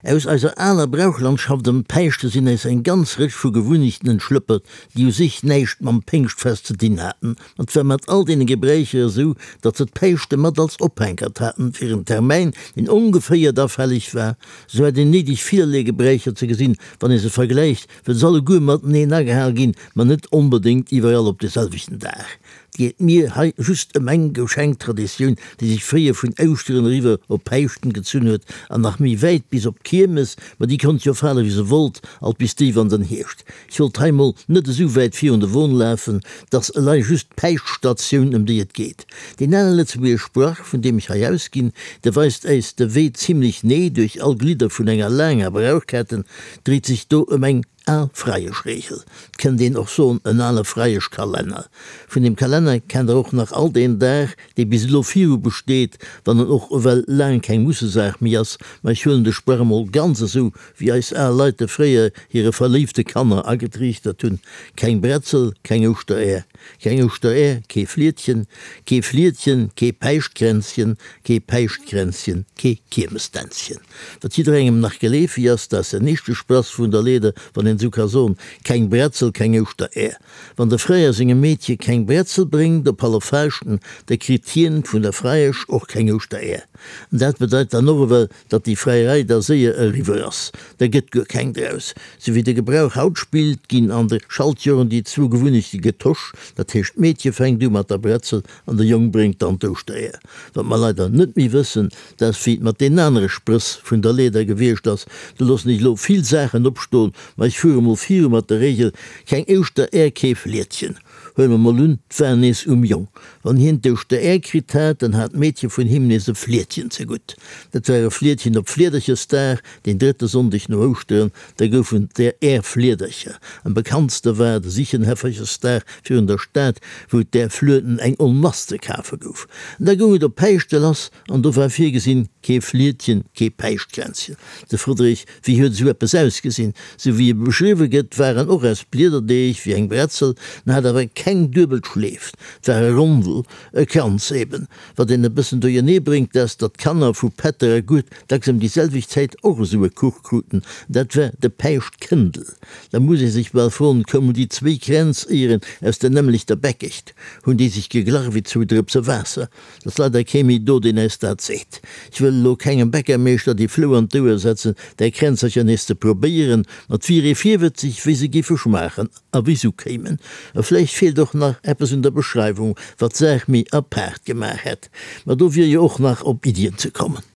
Aus eiser aler Brauchlandschaft ëm d'Päischte sinn äis eng ganz Rëtsch vu Gewunnechten entschlëppert, déi u sech näischt mam Péngschtfest ze dinn haten. Ma 't war mat all deene Gebräicher esou, datt se d'Päischte mat als Ophänkert haten fir en Termäin, deen ongeféier da fälleg war. Sou hat een néideg villerlee Gebräicher ze gesinn, wann ee se vergläicht, well se alleguer mateneen agehal ginn, ma net onbedéngt iwwerall op de selwechten Dag. 't geet mir hei just ëm eng Geschenktraditioun, déi sech fréier vun Ouschteren eriwwer op Päischten gezunn huet an nach méi wäit bis op d'Kiermes, ma déi konnt jo fale wéi se wollt, alt bis déif an den Hierscht. Ech wollt hei mol net esou wäit virun de Won lafen, 't ass elei just d'Päischtstation ëm déi et geet. Deen ale lëtzebuergesch Sprach, vun deem ech hei ausginn, de weist äis de Wee zimlech nee duerch all Glidder vun enger laanger Brauchketten, dréit sech do ëm eng Al Freieschregel, 't kënnt een och soen en ale Freieschkalenner. Vun deem Kalenner kennt der och nach alt een Dag, dee bis elo viru besteet, wann en och ewell laang keng Mussesaach méi ass. Ma ech huelen de Sprach emol ganz esou, wéi eis al Leit e fréier hire verléifte Kanner agetriichtert hunn, Keng Bretzel, keng Ouschteräer, keng Ouschteräer, kee Fliedchen, kee Fliedchen, kee Päischtkränzchen, kee Päischtkränzchen, kee Kiermesdänzchen. Wat jidderengem nach geleefeg ass, dat ass den éischte Sprass vun der Leeder, wann een esou ka soen, Keng Bretzel, keng Ouschteräer. Wann de Freier sengem Meedche keng Bretzel bréngt op Halleffaaschten, da kritt hien vun der Freiesch och keng Ouschteräer. An dat bedeit dann och ewell, datt déi Freierei da séier eriwwer ass. Da gëtt guer keng draus. Sou wéi de Gebrauch haut spillt, ginn an de Schaltjoren déi zwou Gewunnechte getosch, dat heescht d'Meedche fänkt u mat der Bretzel an de Jong bréngt dann d'Ouschteräer. Wat mer leider net méi wëssen, dat ass wéi et mat deenen anere Sprëss vun der Leeder gewiescht ass. Do loossen ech elo vill Saachen opstoen, ma ech fuere mol viru mat der Regel, keng Ouschteräer, kee Fliedchen. Huele mer mol un, 't war nees um Jong. Wann hien d'Ouschteräer kritt hat, dann hat d'Meedche vun him nees e Fliedchen zegutt. Dat war e Fliedchen op Fliederchesdag, deen drëtte Sonndeg no Ouschteren. Da goufen et där Fliedercher. Am bekanntste war de Sichenhäfferchesdag virun der Stad, wou et där Flueden eng Onmass ze kafe gouf. An da goung et op Päischte lass, an do war virgesinn, kee Fliedchen, kee Päischtkränzchen. De Friedrich, wéi huet esou eppes ausgesinn? Sou wéi e beschriwwe gëtt, war en och aus Bliederdeeg, wéi eng Bretzel, en hat awer keng duebel Schleef, 't war e Rondel, e Kranz eben. Wat een e bëssen duerjernee bréngt, ass, datt d'Kanner vu Pätter a Gued dacks ëm déi selwecht Zäit och esou e Kuch kruten, dat war de Päischtkëndel. Da muss ee sech bal froen, koumen déi zwéi Kränz éieren aus der nämmlechter Bäckecht? Hunn déi sech geglach wéi zwou Drëpse Waasser? Et ass leider kee méi do, deen äis dat seet. Ech wëll elo kengem Bäckermeeschter déi Flou an d'Ouer setzen, där Kränzercher nees ze probéieren, ma 't wier ee virwëtzeg, wéi se géife schmaachen a wéi s'ukéimen. A vläicht feelt och nach eppes un der Beschreiwung, wat d'Saach méi apaart gemaach hätt. Ma do wier jo och nach op Iddien ze kommen.